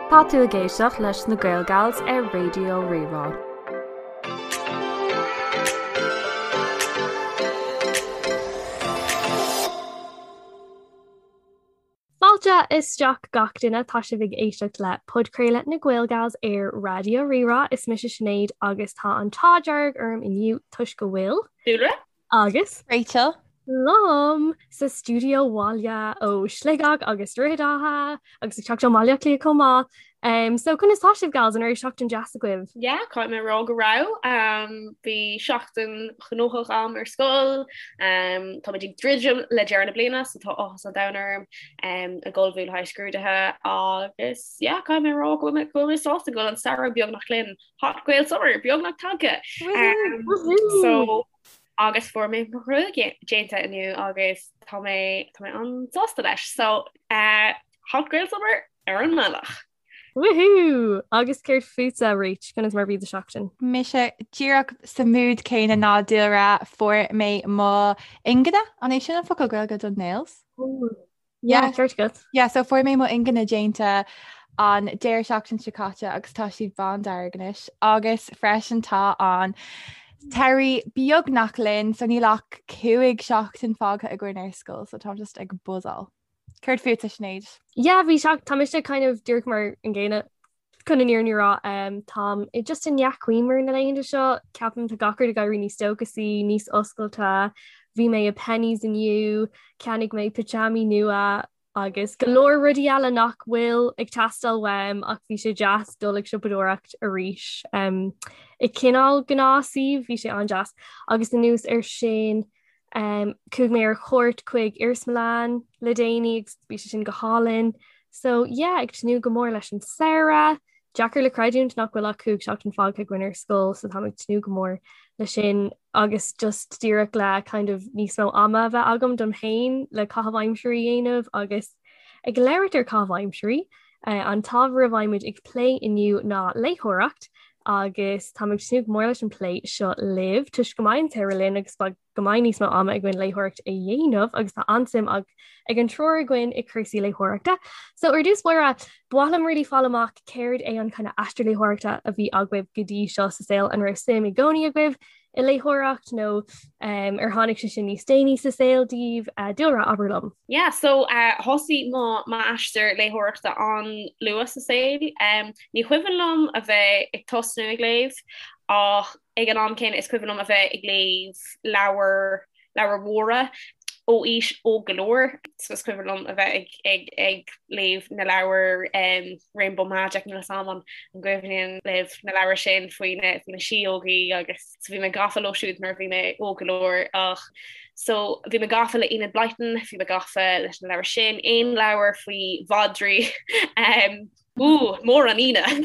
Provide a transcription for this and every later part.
Tá tú ag éisteacht leis na Gael Gals ar Raidió Rí-Rá. Fáilte isteach gach duine, tá sibh ag éisteacht le podchraoladh na Gael Gals ar Raidió Rí-Rá. Is mise Sinéad agus tá an t-ádh dearg orm inniu toisc go bhfuil. Dúlra. Agus. Rachel. Liom sa stiúideo abhaile ó Shligeach agus Droichead Átha agus ag teacht ó Bhaile Átha Cliath chomh maith. Um, so conas tá sibh gals an raibh seachtain deas agaibh? Yeah, caithfidh mé rá go raibh. Um, bhí seachtain ghnóthach agam ar scoil. Um, tá muid ag druidim le deireadh na bliana, so tá áthas an domhain orm um, ag ullmhú le haghaidh scrúduithe agus yeah, caithfidh mé rá go bhfuil mé go bhfuil mé sásta go bhfuil an samhradh beagnach linn. Hot Gael Summer beagnach tagtha. Um, so agus fuair mé mo ghruaig déanta inniu agus tá mé tá mé an-sásta leis. So uh, Hot Gael Summer ar an mbealach. Woohoo! Agus céard fútsa Rach, conas mar bhí do seachtain? Mise díreach sa mood céanna ná Dúlra fuair mé mo ingne an é sin an focal Gaeilge don nails? Yeah, ceart agat. Yeah, so fuair mé mo ingne déanta an deireadh seachtain seo caite agus tá siad bándearg anois agus freisin tá an t-earrach beagnach linn so níl ach 5 seachtain fágtha againn ar scoil so táim just ag buzzáil. Céard fútsa Sinéad? Yeah, bhí seach tá mise kind of díreach mar an gcéanna chun an fhírinne a rá um, táim i just i ndea-chuimhne na laethanta seo ceapaim tá gach rud ag éirí níos dóchasaí, níos oscailte. Bhí mé i Penneys inniu, cheannaigh mé pitseámaí nua agus go leor rudaí eile nach bhfuil ag teastáil uaim ach bhí sé deas dul ag siopadóireacht arís. Um, i cineál gnáthshuíomh bhí sé an-deas agus anuas ar sin um, chuaigh mé ar chuairt chuig iarsmalann le déanaí agus bhí sé sin go hálainn. So yeah, ag tnúth go mór leis an samhradh. Deacair le creidiúint nach bhfuil ach 5 seachtain fágtha againn ar scoil so táim ag tnúth go mór le sin agus just díreach le kind of níos mó ama a bheith agam dom féin le caitheamh aimsire a dhéanamh agus ag labhairt ar caitheamh aimsire. Uh, an t-ábhar a bheimid ag plé inniu ná léitheoireacht agus táim ag tnúth go mór leis an plé seo libh toisc go mbeidh an tsamhradh linn agus beidh go mbeidh níos mó ama againn léitheoireacht a dhéanamh agus tá an-suim ag ag an triúr againn i cúrsaí léitheoireachta. So ar dtús báire, ba mhaith liom really fáil amach céard é an kind of aistear léitheoireachta a bhí agaibh go dtí seo sa saol, an raibh suim i gcónaí agaibh i léitheoireacht nó um, ar tháinig sé sin níos déanaí sa saol daoibh uh, Dúlra abair liom. Yeah, so uh, thosaigh mo m'aistear léitheoireachta an-luath sa saol. Um, ní cuimhin liom a bheith ag tosnú ag léamh ach Ag an am céanna is cuimhin liom a bheith ag léamh leabhair, leabhair mhóra ó aois óg go leor. So is cuimhin liom a bheith ag, ag, ag léamh na leabhar um, Rainbow Magic níl a fhios agam an gcuimhníonn libh na leabhair sin faoi na, faoi na síógaí agus so bhí mé gafa leo siúd nuair a bhí mé óg go leor ach so bhí mé gafa le Enid Blyton, bhí mé gafa leis na leabhair sin, aon leabhar faoi mhadraí um, Ú, mór an ionadh!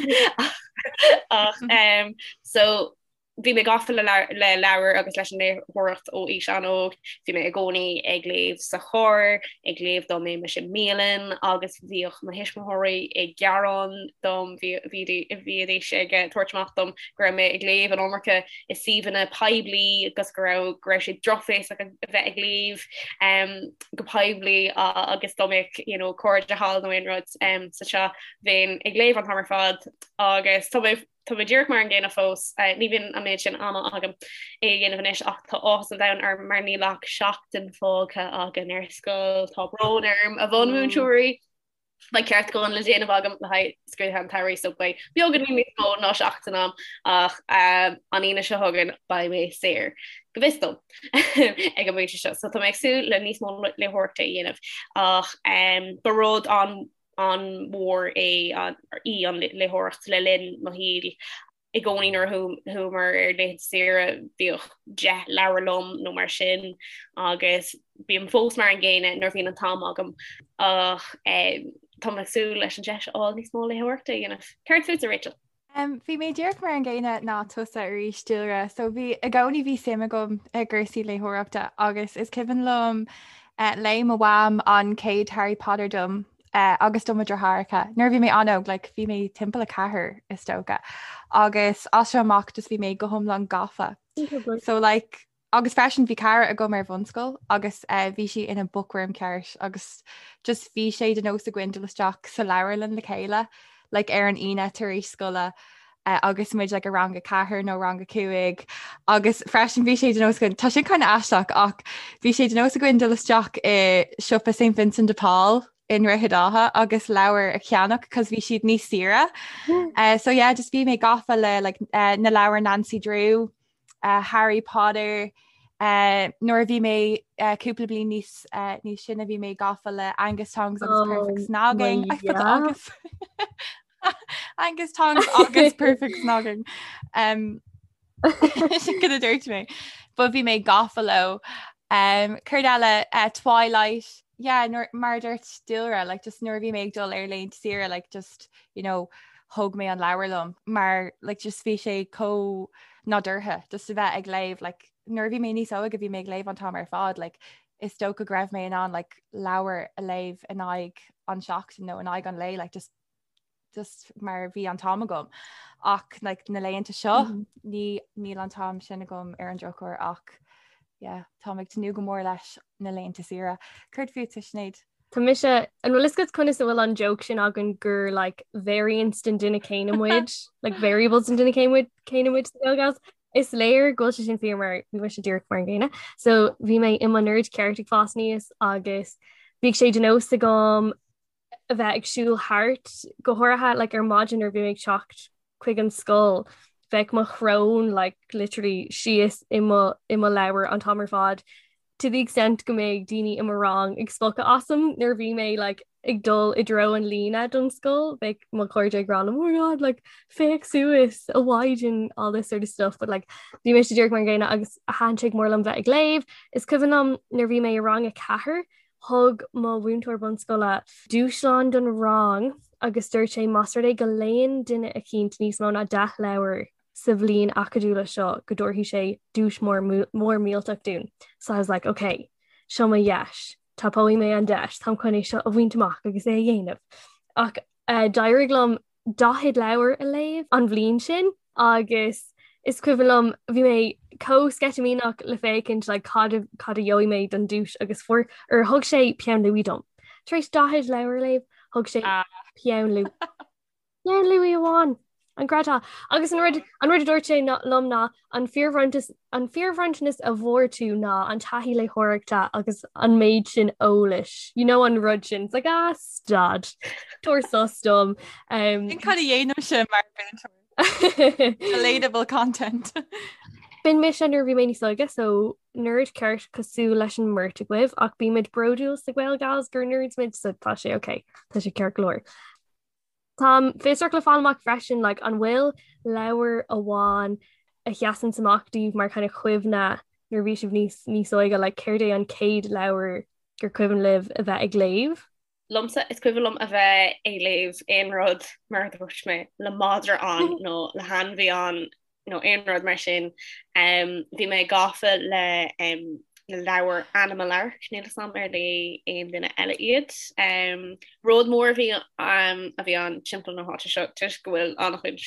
Ach um, so bhí mé gafa le le leabhair agus leis an léitheoireacht ó aois an-óg, bhí mé i gcónaí ag léamh sa charr, ag léamh dá mbeimis i mbialann agus bhíodh mo thuismitheoirí ag gearán dom, bhídís ag tabhairt amach dom go raibh mé ag léamh an iomarca i suíomhanna poiblí agus go raibh go raibh sé drochbhéasach a bheith ag léamh um, go poiblí agus dá mbeadh you know, cairde thall nó aon rud um, sa teach bheinn ag léamh an t-am ar fad agus tá mé tá mé díreach mar an gcéanna fós uh, ní bhíonn an méid sin ama agam é a dhéanamh anois ach tá áthas an domhain orm mar níl ach seachtain fágtha againn ar scoil tá brón orm a bhunmhúinteoirí Beidh ceartúchán le déanamh agam le haghaidh scrúduithe an tsamhraidh so beidh beagáinín níos mó ná seachtain agam ach an Aoine seo chugainn beidh mé saor, go bhfios dom, ag an bpointe seo. So tá mé ag súil le níos mó léitheoireachta a dhéanamh ach ba rud an an-mhór é í an léitheoireacht le linn mo shaoil. I gcónaí nuair a chuamar ar laethanta saoire bhíodh 10 leabhar liom nó mar sin agus bím fós mar an gcéanna nuair a bhíonn an t-am agam ach tá mé ag súil leis an deis a fháil níos mó léitheoireachta a dhéanamh. Céard fútsa Rachel? Um, bhí mé díreach mar an gcéanna ná tusa arís Dúlra, so bhí i gcónaí bhí suim agam i gcúrsaí léitheoireachta agus is cuimhin liom uh, léigh mo mham an chéad Harry Potter dom agus do mo dheartháireacha. Nuair a bhí mé an-óg, like, bhí mé timpeall 4 is dócha. Agus as seo amach just bhí mé go hiomlán gafa. So like, agus freisin bhí cara agam ar bhunscoil agus uh, bhí sí ina bookworm ceart agus just bhí sé de nós againn dul isteach sa leabharlann le chéile. like ar an Aoine tar éis scoile uh, agus muid like, i rang a 4 nó rang a 5 agus freisin bhí sé de nós againn tá sin kind of aisteach ach bhí sé de nós againn dul isteach i siopa St Vincent de Paul i nDroichead Átha agus leabhar a cheannach cos bhí siad níos saoire. Uh, so yeah, just bhí mé gafa le like, uh, na leabhair Nancy Drew, uh, Harry Potter, uh, nuair a bhí mé uh, cúpla bliain níos uh, níos sine bhí mé gafa le Angus Tongs agus oh, Perfect Snogging. I put yeah. Agus Angus Tongs agus Perfect Snogging. Um, sin cad a dúirt mé. But bhí mé gafa leo. Um, céard eile uh, Twilight yeah, nuair, mar a dúirt Dúlra, like, just nuair a bhí mé ag dul ar laethanta saoire, like, just, you know, thóg mé an leabhar liom mar like, just bhí sé chomh nádúrtha just a bheith ag léamh like, nuair a bhí mé níos óige bhí mé ag léamh an t-am ar fad like, is dócha go raibh mé in ann like, leabhar a léamh in aghaidh an seachtain nó in aghaidh an lae like, just just mar bhí an t-am agam ach like, na laethanta seo mm -hmm. ní níl an t-am sin agam ar an drochuair ach yeah, táim ag tnúth go mór leis na laethanta saoire. Céard fútsa Sinéad? Tá mise an bhfuil fhios agat conas a bhfuil an joke sin againn gur like, variants den duine céanna muid, like variables den duine céanna muid céanna muid sa Gael Is léir go bhfuil sé sin fíor mar bhí mise díreach mar an gcéanna. So bhí mé i mo nerd ceart ag fás aníos agus bhíodh sé de nós agam a bheith ag siúl thart, go háirithe like, ar maidin nuair a bhí mé ag teacht chuig an scoil, bheadh mo shrón like, literally síos i mo, i mo leabhar an t-am ar fad to the extent go mbeadh daoine i mo rang ag spochadh asam nuair a bhí mé like, ag dul i dtreo an líne don scoil, bheadh mo chairde ag rá liom, oh my god, like, féach suas a mhaighdean all this sort of stuff, but like, bhí mise díreach mar an gcéanna agus thaitin sé go mór liom bheith ag léamh. Is cuimhin liom nuair bhí mé i rang a 4, Thug mo mhúinteoir bunscoile dúshlán don rang agus dúirt sé más rud é go léann duine eicínt níos mó ná 10 leabhar sa bhliain acadúla seo go dtabharfaidh sé duais mór mór millteach dúinn. So I was like, ok, seo mo dheis, tapóidh mé an deis, táim chun é seo a bhaint amach agus é a dhéanamh. Ach uh, d'éirigh liom 40 leabhar a léamh an bhliain sin agus is cuimhin liom bhí mé chomh sceitimíneach le féachaint like, cad a, cad a gheobhaidh mé don duais agus fuair or thug sé peann luaidhe dom. Tar éis 40 leabhar a léamh, thug sé ah. peann luaidhe. Peann luaidhe amháin. An gcreidfeá. Agus an rud an rud a dúirt sé liom ná an fíorbhronntanas an fíorbhronntanas a bhfuair tú ná an taithí léitheoireachta agus an méid sin eolais. You know an rud sin. It's like ah stad. Tabhair sos dom. Um, Sin cad a dhéanaimse mar mhúinteoir. Relatable content. B'in mise nuair a bhí mé níos óige, so nerd ceart cosúil leis an mbeirt agaibh ach bímid bródúil sa Gael Gals gur nerds muid so tá sé ok, tá sé ceart go leor. Táim fiosrach le fáil amach freisin like, an bhfuil leabhar amháin a sheasann amach daoibh mar kind of chuimhne nuair a bhí sibh níos níos óige like, céard é an chéad leabhar gur cuimhin libh a bheith ag léamh? Liomsa is cuimhin liom a bheith ag léamh aon rud mar a dúirt mé le madra ann nó le hainmhí ann nó aon rud mar sin. Bhí mé gafa le na leabhair Animal Ark, níl 'fhios a'm ar léigh aon duine eile iad. Rud mór a bhí a bhí ann timpeall na háite seo toisc go bhfuil an-chuid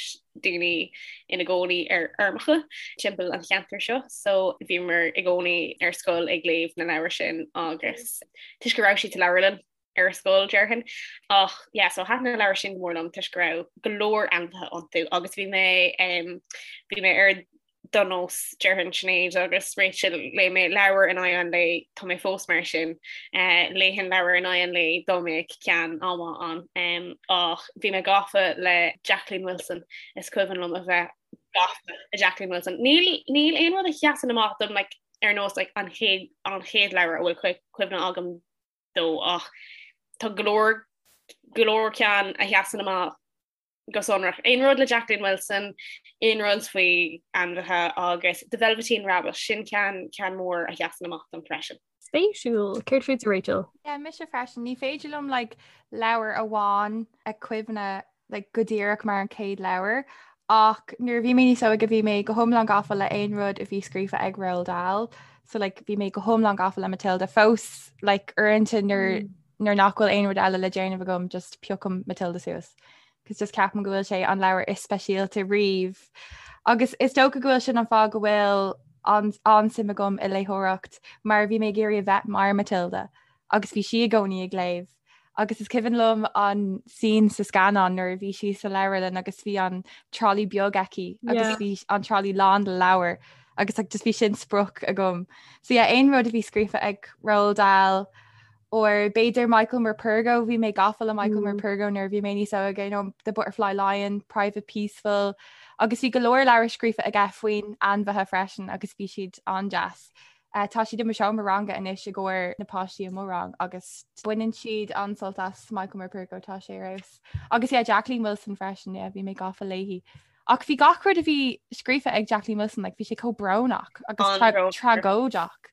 daoine ina gcónaí ar fheirmeacha timpeall an cheantair seo, so bhíomar i gcónaí ar scoil ag léamh na leabhar sin agus toisc go raibh siad sa leabharlann ar scoil déarfainn. Ach yeah, so thaitin na leabhair sin go mór liom toisc go raibh go leor ainmhithe iontu agus bhí mé um, bhí mé ar do nós déarfainn Sinéad agus Rachel léigh mé leabhar in aghaidh an lae tá mé fós mar sin uh, léifinn leabhar in aghaidh an lae dá mbeadh ceann an-mhaith ann um, ach bhí mé gafa le Jacqueline Wilson is cuimhin liom a bheith gafa le Jacqueline Wilson. Níl níl aon rud a sheasann amach dom like, ar nós like, an chéad an chéad leabhar a bhfuil cuimhne agam dó ach tá go leor go leor ceann a sheasann amach go sonrach. Aon rud le Jacqueline Wilson, aon rud faoi ainmhithe agus The Velveteen Rabbit, sin ceann ceann mór a sheasann amach dom freisin. Spéisiúil. Céard fútsa Rachel? Yeah, mise freisin. Ní féidir liom like, leabhar amháin a chuimhneamh like, go díreach mar an chéad leabhar ach nuair a bhí mé níos óige bhí mé go hiomlán gafa le aon rud a bhí scríofa ag Roald Dahl so like, bhí mé go hiomlán gafa le Matilda fós like, uaireanta nuair mm. nuair nach bhfuil aon rud eile le déanamh agam just piocaim Matilda suas. Cos just ceapaim go bhfuil sé an leabhar is speisialta riamh. Agus is dócha go bhfuil sin an fáth go bhfuil an an-suim agam i léitheoireacht mar bhí mé ag iarraidh a bheith mar Matilda agus bhí sí i gcónaí ag léamh. Agus is cuimhin liom an scene sa scannán nuair a bhí sí sa leabharlann agus bhí an trolley beag aici agus bhí an trolley lán le leabhair agus like, just bhí sin sprioc agam. So yeah, aon rud a bhí scríofa ag Roald Dahl or b'fhéidir Michael Morpurgo, bhí mé gafa le Michael mm. Morpurgo nuair a bhí mé níos óige, you know, The Butterfly Lion, Private Peaceful, agus bhí go leor leabhar scríofa aige faoin ainmhithe freisin agus bhí siad an-deas. Uh, tá siad i mo seomra ranga anois i gcomhair na páistí i mo rang agus baineann siad an-sult as Michael Morpurgo tá sé ar fheabhas. Agus yeah, Jacqueline Wilson freisin, yeah, bhí mé gafa léi. Ach bhí gach rud a bhí scríofa ag Jacqueline Wilson, like, bhí sé chomh brónach agus tra tragóideach.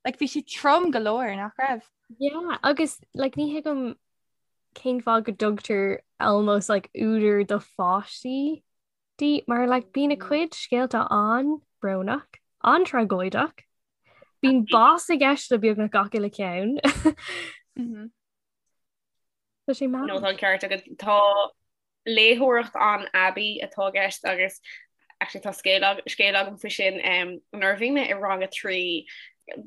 Like, bhí sé trom go leor nach raibh. Yeah, agus like, ní thuigim cén fáth go dtugtar almost like údar do pháistí di mar like bíonn a cuid scéalta an-bhrónach, an-tragóideach. Bíonn bás i gceist le beagnach gach uile ceann. Mm-hmm. Tá sé No tá an ceart agat tá léitheoireacht an-aibí atá i gceist agus actually tá scéal scéal agam faoi sin um, nuair a bhí mé i rang a 3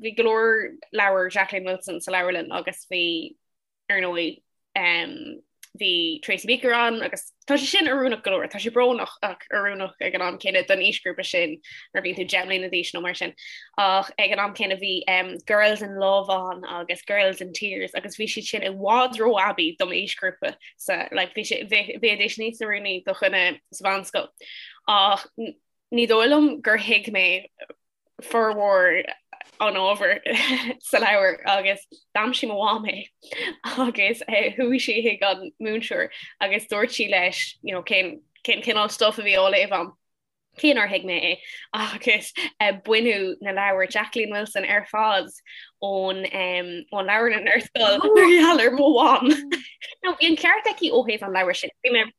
bhí go leor leabhar Jacqueline Wilson sa leabharlann agus bhí ar ndóigh bhí Tracy Beaker ann agus tá sé sin oiriúnach go leor, tá sé brónach ach oiriúnach ag an am céanna don aoisghrúpa sin nuair a bhíonn tú 10 mbliana d'aois nó mar sin. Ach ag an am céanna bhí um, Girls in Love ann agus Girls in Tears agus bhí siad sin i bhfad ró-aibí dom aoisghrúpa sa like, bhí sé bheidís níos oiriúnaí do dhuine sa mheánscoil. Ach ní dóigh liom gur thuig mé formhór an ábhair sa leabhar agus d'aimsigh mo mham é agus eh, chuaigh sí chuig an múinteoir agus dúirt sí leis you know, cén cén cineál stuff a bhí á léamh agam cé nár thuig mé é agus eh, baineadh na leabhair Jacqueline Wilson ar fad ón um, ón leabharlann ar scoil mar gheall ar mo mham. Now bhí an ceart aici ó thaobh an leabhair sin. Bhí mé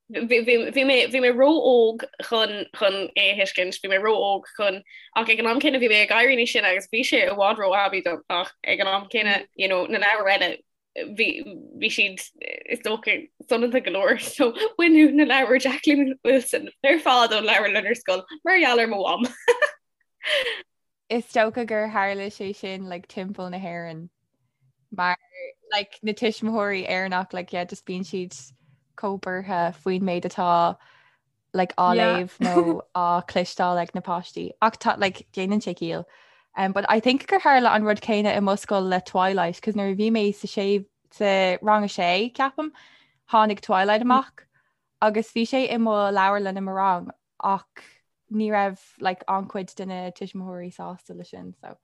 Bhí mé bhí mé ró-óg chun chun é a thuiscint, bhí mé ró-óg chun ach ag an am céanna bhí mé ag éirí níos sine agus bhí sé i bhfad ró-aibí dom ach ag an am céanna you know, na leabhair eile bhí bhí siad is dócha soineanta go leor so baineadh na leabhair Jacqueline Wilson ar fad ón leabharlann ar scoil mar gheall ar mo mham. Is dócha gur tharla sé sin like, timpeall na hÉireann mar like, na tuismitheoirí Éireannach like, yeah, just bíonn siad chomh buartha faoin méid atá like, á yeah. léamh nó á chloisteáil ag na páistí. Ach tá like, déanann sé ciall. Um, but I think gur tharla an rud céanna i mo scoil le Twilight, cos nuair a bhí mé sa sé sa rang a sé ceapaim, tháinig Twilight mm. amach agus bhí sé i mo leabharlann i mo rang ach ní raibh like an-chuid de na tuismitheoirí sásta le sin so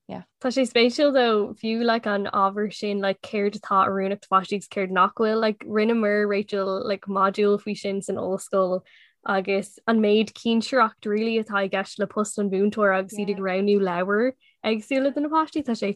yeah. Tá sé spéisiúil though fiú like an ábhar sin like céard atá oiriúnach do pháistí agus céard nach bhfuil like rinneamar Rachel like modúl faoi sin san ollscoil agus an méid cinsireacht really atá i gceist le post an mhúinteora agus iad ag roghnú leabhar éagsúla do na páistí tá sé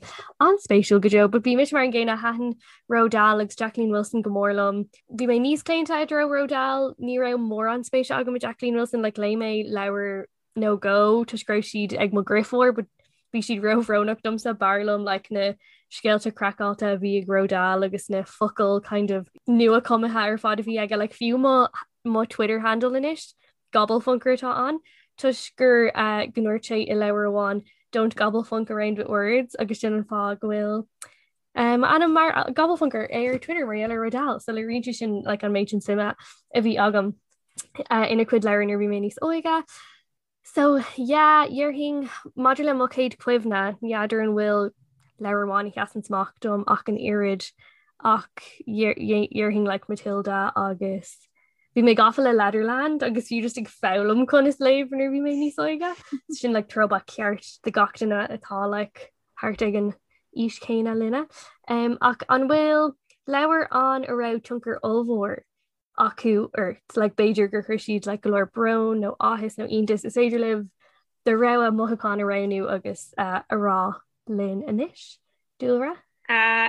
an-spéisiúil go deo, but bhí mise mar an gcéanna thaitin Roald Dahl agus Jacqueline Wilson go mór liom. Bhí mé níos claonta i dtreo Roald Dahl, ní raibh mórán spéise agam i Jacqueline Wilson, like léigh mé leabhar nó dhó toisc go raibh siad ag mo dheirfiúr, but bhí siad róbhrónach domsa b'fhearr liom like na scéalta craiceáilte a bhí ag Roald Dahl agus na focail kind of nua-chumtha ar fad a bhí aige like fiú mo mo Twitter handle anois Gobblefunker atá ann toisc gur go ndúirt sé i leabhar amháin 'Don't gobblefunk around with words' agus sin an fáth go bhfuil m'ainm mar Gobblefunker ar Twitter mar gheall ar Roald Dahl. So léiríonn sé sin like an méid sin suime a bhí agam ina chuid leabhar nuair a bhí mé níos óige. So yeah, déarfainn maidir le mo chéad chuimhne, ní fheadar an bhfuil leabhar amháin a sheasann amach dom ach an oiread ach déarfainn like Matilda agus Bhí mé gafa le Letterland agus fiú just ag foghlaim conas léamh nuair a bhí mé níos óige. Sin like throwback ceart do gach duine atá like thart ag an aois chéanna linne. Um, ach an bhfuil leabhar ann a raibh tionchar ollmhór acu ort? Like b'fhéidir gur chuir siad like go leor brón nó áthas nó iontas is féidir libh do rogha mothúchán a roghnú agus uh, a rá linn anois. Dúlra?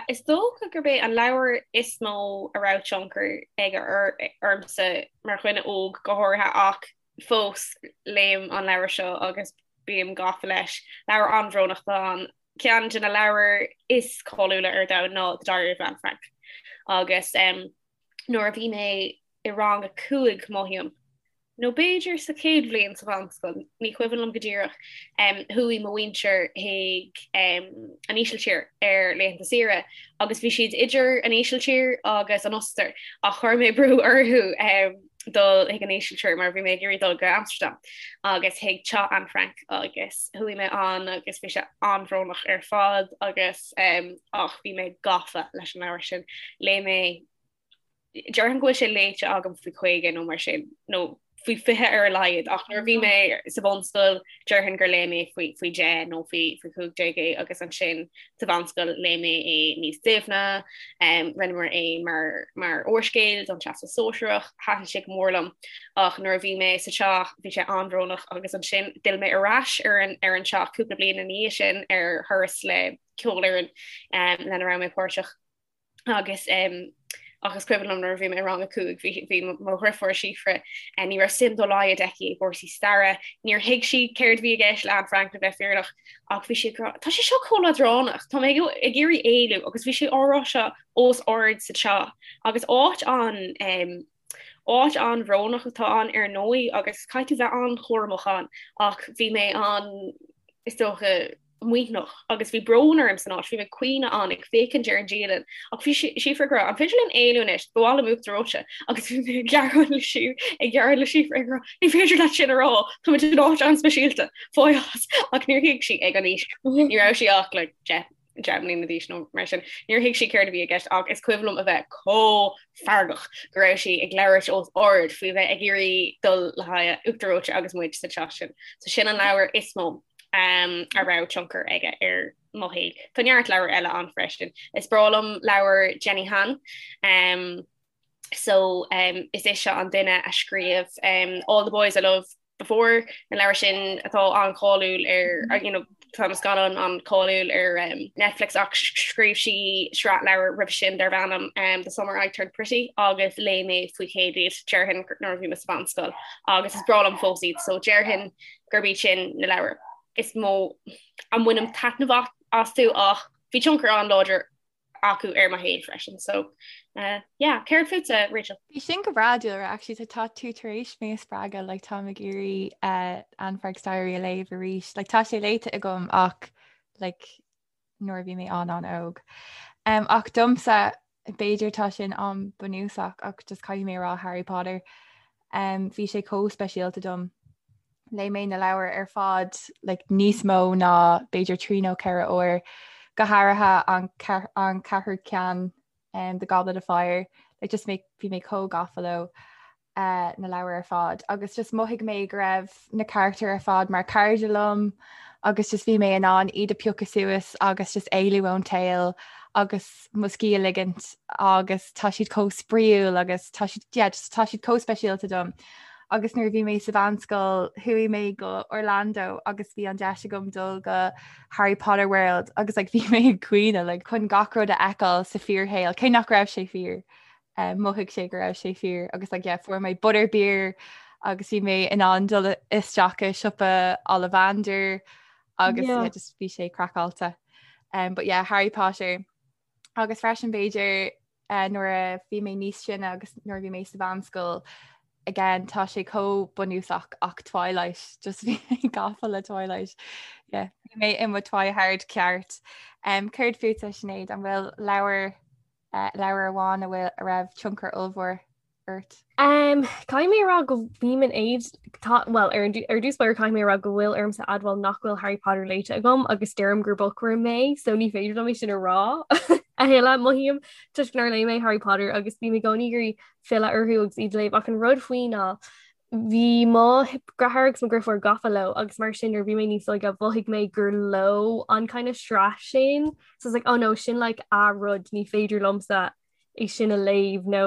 Is dócha gurb é an leabhar is mó a raibh tionchar aige ormsa mar dhuine óg go háirithe ach fós léim an leabhar seo agus bím gafa leis. Leabhar an-bhrónach atá ann. Ceann de na leabhair is cáiliúla ar domhan ná The Diary of Anne Frank agus nuair a bhí mé i rang a 5 mothaím. Nó b'fhéidir sa chéad bhliain sa mheánscoil, ní cuimhin liom go díreach, chuaigh mo mhuintir chuig an Ísiltír ar laethanta saoire agus bhí siad idir an Ísiltír agus an Ostair ach chuir mé brú orthu dul chuig an Ísiltír mar bhí mé ag iarraidh dul go Amsterdam agus chuig teach Anne Frank agus chuaigh mé ann agus bhí sé an-bhrónach ar fad agus ach bhí mé gafa leis an leabhar sin. Léigh mé Déarfainn go bhfuil sé léite agam faoi 50 nó mar sin, nó faoi 20 ar a laghad, ach nuair a bhí mé sa bhunscoil déarfainn gur léigh mé faoi faoi 10 nó faoi faoi 15 é agus ansin sa mheánscoil léigh mé é níos doimhne, rinneamar é mar mar úrscéal don Teastas Sóisearach, thaitin sé go mór liom ach nuair a bhí mé sa teach bhí sé an-bhrónach agus ansin d'fhill mé ar ais ar an ar an teach cúpla bliain ina dhiaidh sin ar thuras le ceolfhoireann lena raibh mé páirteach. agus ach is cuimhin liom nuair a bhí mé i rang a 5 bhí bhí mo dheirfiúr Síofra ní raibh suim dá laghad aici i gcúrsaí staire, níor thuig sí céard a bhí i gceist le Anne Frank le bheith fírinneach ach bhí sí ag rá tá sé seo chomh leadránach, tá mé ag iarraidh éalú agus bhí sé á rá seo os ard sa teach agus áit an Áit an-bhrónach atá ann ar ndóigh agus caithfidh tú bheith an-chúramach ann ach bhí mé an, is dócha, maoithneach agus bhí brón orm san áit, bhí mé ag caoineadh ann ag féachaint ar an dialann ach bhí Síofra ag rá an féidir linn éalú anois, ba mhaith liom uachtar reoite agus bhí mé ag gearán le sí ag gearán le Síofra ag rá ní féidir leat sin a rá, táimid in áit an-speisialta, fág as ach níor thuig sí ag an aois, ní raibh sí ach like 10 10 mbliana d'aois nó mar sin. Níor thuig sí céard a bhí i gceist ach is cuimhin liom a bheith chomh feargach go raibh sí ag labhairt os ard faoi bheith ag iarraidh dul le haghaidh uachtar reoite agus muid sa teach sin. So sin an leabhar is mó um, a raibh tionchar aige ar mo shaol. Tá neart leabhar eile ann freisin. Is breá liom leabhar Jenny Han. Um, so um, is ise an duine a scríobh um, All the Boys I Loved Before, na leabhair sin atá an-cháiliúil ar you know, tá na scannáin an-cháiliúil ar um, Netflix ach scríobh sí sraith leabhar roimhe sin darb ainm um, The Summer I Turned Pretty agus léigh mé faoi chéad iad déarfainn nuair a bhí mé sa mheánscoil agus is breá liom fós iad so déarfainn gurb iad sin na leabhair is mó a mbainim taitneamh astu ach bhí tionchar an-láidir acu ar mo shaol freisin so uh, yeah, céard fútsa Rachel? Bhí sin go breá Dúlra actually tá tá tú tar éis mé a spreagadh like táim ag iarraidh uh, Anne Frank's Diary a léamh arís like tá sé léite agam ach like nuair a bhí mé an an-óg. Um, ach domsa b'fhéidir tá sin an-bhunúsach ach just caithfidh mé rá Harry Potter. Um, bhí sé chomh speisialta dom. Léigh mé na leabhair ar fad like, níos mó ná b'fhéidir 3 nó 4 uair, go háirithe an, an ceathrú ceann um, The Goblet of Fire, like, just mé, bhí mé chomh gafa leo uh, na leabhair ar fad agus just mhothaigh mé go raibh na carachtair ar fad mar cairde liom agus just bhí mé in ann iad a piocadh suas agus just éalú ón tsaol agus mo scíth a ligint agus tá siad chomh spraíúil agus tá siad yeah, just, tá siad chomh speisialta dom. Agus nuair a bhí mé sa mheánscoil chuaigh mé go Orlando agus bhí an deis agam dul go Harry Potter World agus like, bhí mé ag caoineadh like, chun gach rud a fheiceáil sa fíorshaol, cé nach raibh sé fíor. Um, mhothaigh sé go raibh sé fíor agus like, yeah, fuair mé butterbeer agus bhí mé in ann dul isteach i siopa Ollivander agus yeah. Yeah, just bhí sé craiceáilte. Um, but yeah, Harry Potter agus freisin b'fhéidir uh, nuair a bhí mé níos sine agus nuair a bhí mé sa mheánscoil again tá sé chomh bunúsach ach Twilight just bhí mé gafa le Twilight yeah, bhí mé i mo Twihard ceart. Um, céard fútsa Sinéad an bhfuil leabhar uh, leabhar amháin a bhfuil a raibh tionchar ollmhór ort? Um, caithfidh mé a rá go mbím in éad tá well ar an ar dtús báire caithfidh mé a rá go bhfuil ormsa admháil nach bhfuil Harry Potter léite agam agus deirim gur bookworm mé so ní féidir liom é sin a rá a thuilleadh mothaím toisc nár léigh mé Harry Potter agus bím i gcónaí ag iarraidh filleadh orthu agus iad a léamh ach an rud faoi ná bhí mo dheartháir agus mo dheirfiúr gafa leo agus mar sin nuair bhí mé níos óige mhothaigh mé gur leo an kind of sraith sin so it's like oh no sin like a rud ní féidir liomsa é sin a léamh nó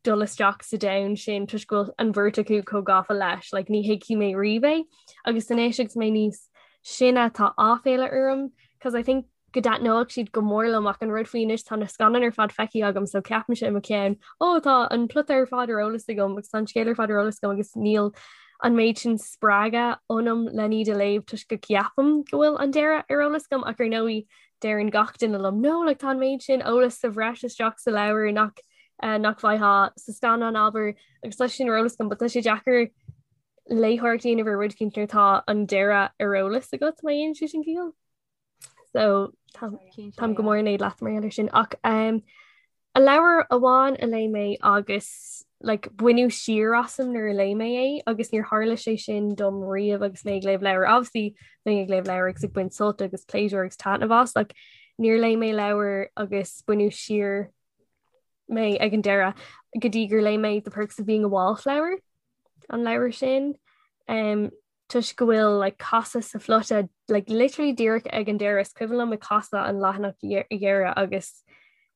dul isteach sa domhan sin toisc go bhfuil an bheirt acu chomh gafa leis, like ní thuigfidh mé riamh é. Agus anois agus mé níos sine tá áiféala orm cos I think go dtaitneodh siad go mór liom ach an rud faoi anois tá na scannáin ar fad feicthe agam so ceapaimse i mo cheann ó tá an plota ar fad ar eolas agam agus tá an scéal ar fad ar eolas agam agus níl an méid sin spreagadh ionam len iad a léamh toisc go gceapaim go bhfuil an deireadh ar eolas agam ach ar ndóigh deireann gach duine liom no like tá an méid sin eolas sa bhreis isteach sa leabhar nach uh, nach bhfaighfeá sa scannán abair agus tá sin ar eolas agam, but tá sé deacair. Léitheoireacht a dhéanamh ar rud éicint nuair atá an deireadh ar eolas agat má dhéanann sé sin ciall. So táim go mór in éad leat mar gheall air sin ach um, a leabhar amháin a léigh mé agus like, baineadh siar asam nuair a léigh mé é agus níor tharla sé sin dom riamh agus mé ag léamh leabhar. Obviously bheinn ag léamh leabhar agus ag baint sult agus pléisiúr agus taitneamh as, like, níor léigh mé leabhar agus baineadh siar mé ag an deireadh go dtí gur léigh mé The Perks of Being a Wallflower an leabhar sin. Um, toisc go bhfuil like, casadh sa phlota like, literally díreach ag an deireadh is cuimhin liom ag casadh an leathanach dheireadh agus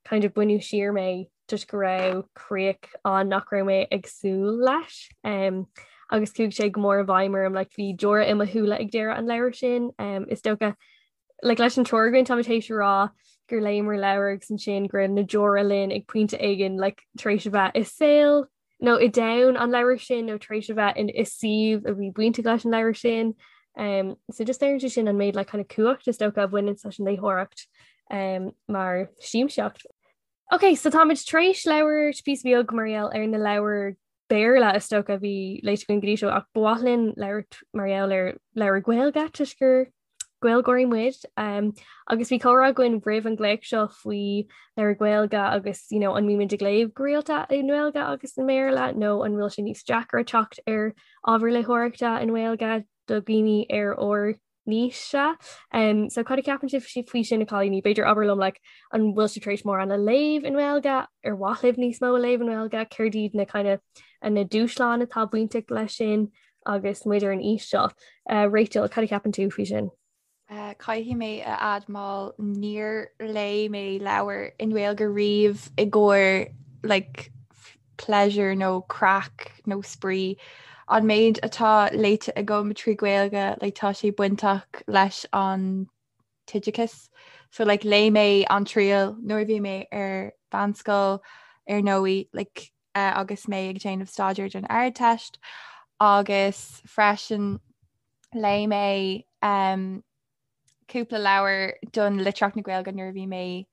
kind of baineadh siar mé toisc go raibh críoch ann nach raibh mé ag súil leis. Um, agus chuaigh sé go mór i bhfeidhm orm like, bhí deora i mo shúile ag deireadh an leabhair sin. Um, is dócha like, leis an triúr againn táimid théis a rá gur léamar leabhar agus ansin go raibh na deora linn ag pointe éigin like, tar éis a bheith i saol nó i domhan an leabhair sin nó tar éis a bheith in i suíomh a bhí bainteach leis an leabhar sin. Um, so just léiríonn sé sin an méid like, kind of cumhacht is dócha a bhaineann leis an léitheoireacht um, mar siamsaíocht. Ok, so táimid tar éis labhairt píosa beag mar gheall ar na leabhair Béarla is dócha a bhí léite againn go dtí seo ach ba mhaith linn labhairt mar gheall ar leabhair Gaeilge toisc gur Gaeilgeoirí muid. Um, agus bhí comhrá againn roimh an glaoch seo faoi leabhair Gaeilge agus you know, an mbímid ag léamh go rialta i nGaeilge agus i mBéarla nó an bhfuil sé níos deacra teacht ar ábhar léitheoireachta i nGaeilge do dhaoine ar ár n-aois-se. Um, so cad a cheapann sibh faoi sin a chailíní? B'fhéidir abair liom like, an bhfuil sibh tar éis mórán a léamh i nGaeilge, ar mhaith libh níos mó a léamh i nGaeilge, céard iad na kind of, na dúshláin atá bainteach leis sin agus muid ar an aois seo. Uh, Rachel, cad a cheapann tú faoi sin? Uh, caithfidh mé a admháil níor léigh mé leabhar i nGaeilge riamh i gcomhair like, pleasure nó craic nó spraoi. An méid atá léite agam trí Ghaeilge like, tá sé bainteach leis an t-oideachas. So like, léigh mé An Triail nuair a bhí mé ar mheánscoil ar ndóigh like, uh, agus mé ag déanamh staidéir don Ardteist agus freisin léigh mé um, cúpla leabhar don litríocht na Gaeilge nuair a bhí mé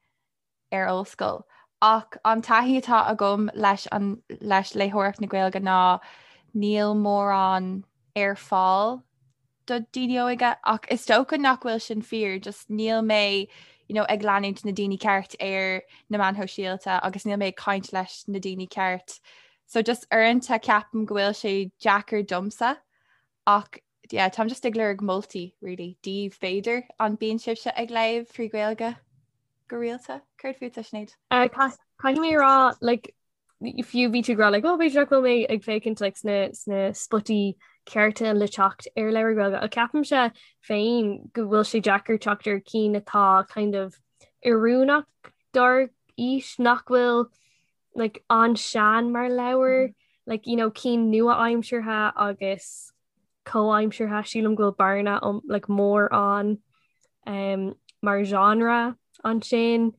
ar ollscoil. Ach an taithí atá agam leis an leis léitheoireacht na Gaeilge ná níl mórán ar fáil do daoine óga ach is dócha nach bhfuil sin fíor, just níl mé you know, ag leanúint na daoine ceart ar na meáin shóisialta agus níl mé ag caint leis na daoine ceart. So just uaireanta ceapaim go bhfuil sé deacair domsa ach yeah, táim just ag lorg moltaí really daoibh b'fhéidir an bíonn sibhse ag léamh trí Ghaeilge go rialta? Céard fútsa Sinéad? Uh, Caithfidh mé rá like, fiú bhí tú ag rá like, oh, b'fhéidir nach bhfuil mé ag féachaint like, sna, sna spotaí cearta le teacht ar leabhair Ghaeilge. Ach ceapaimse féin go bhfuil sé deacair teacht ar cinn atá kind of oiriúnach dár aois nach bhfuil like, an-sean mar leabhar, mm -hmm. like, you know, cinn nua-aimseartha agus comhaimseartha sílim go bhfuil bearna um, like, mór ann um, mar genre ansin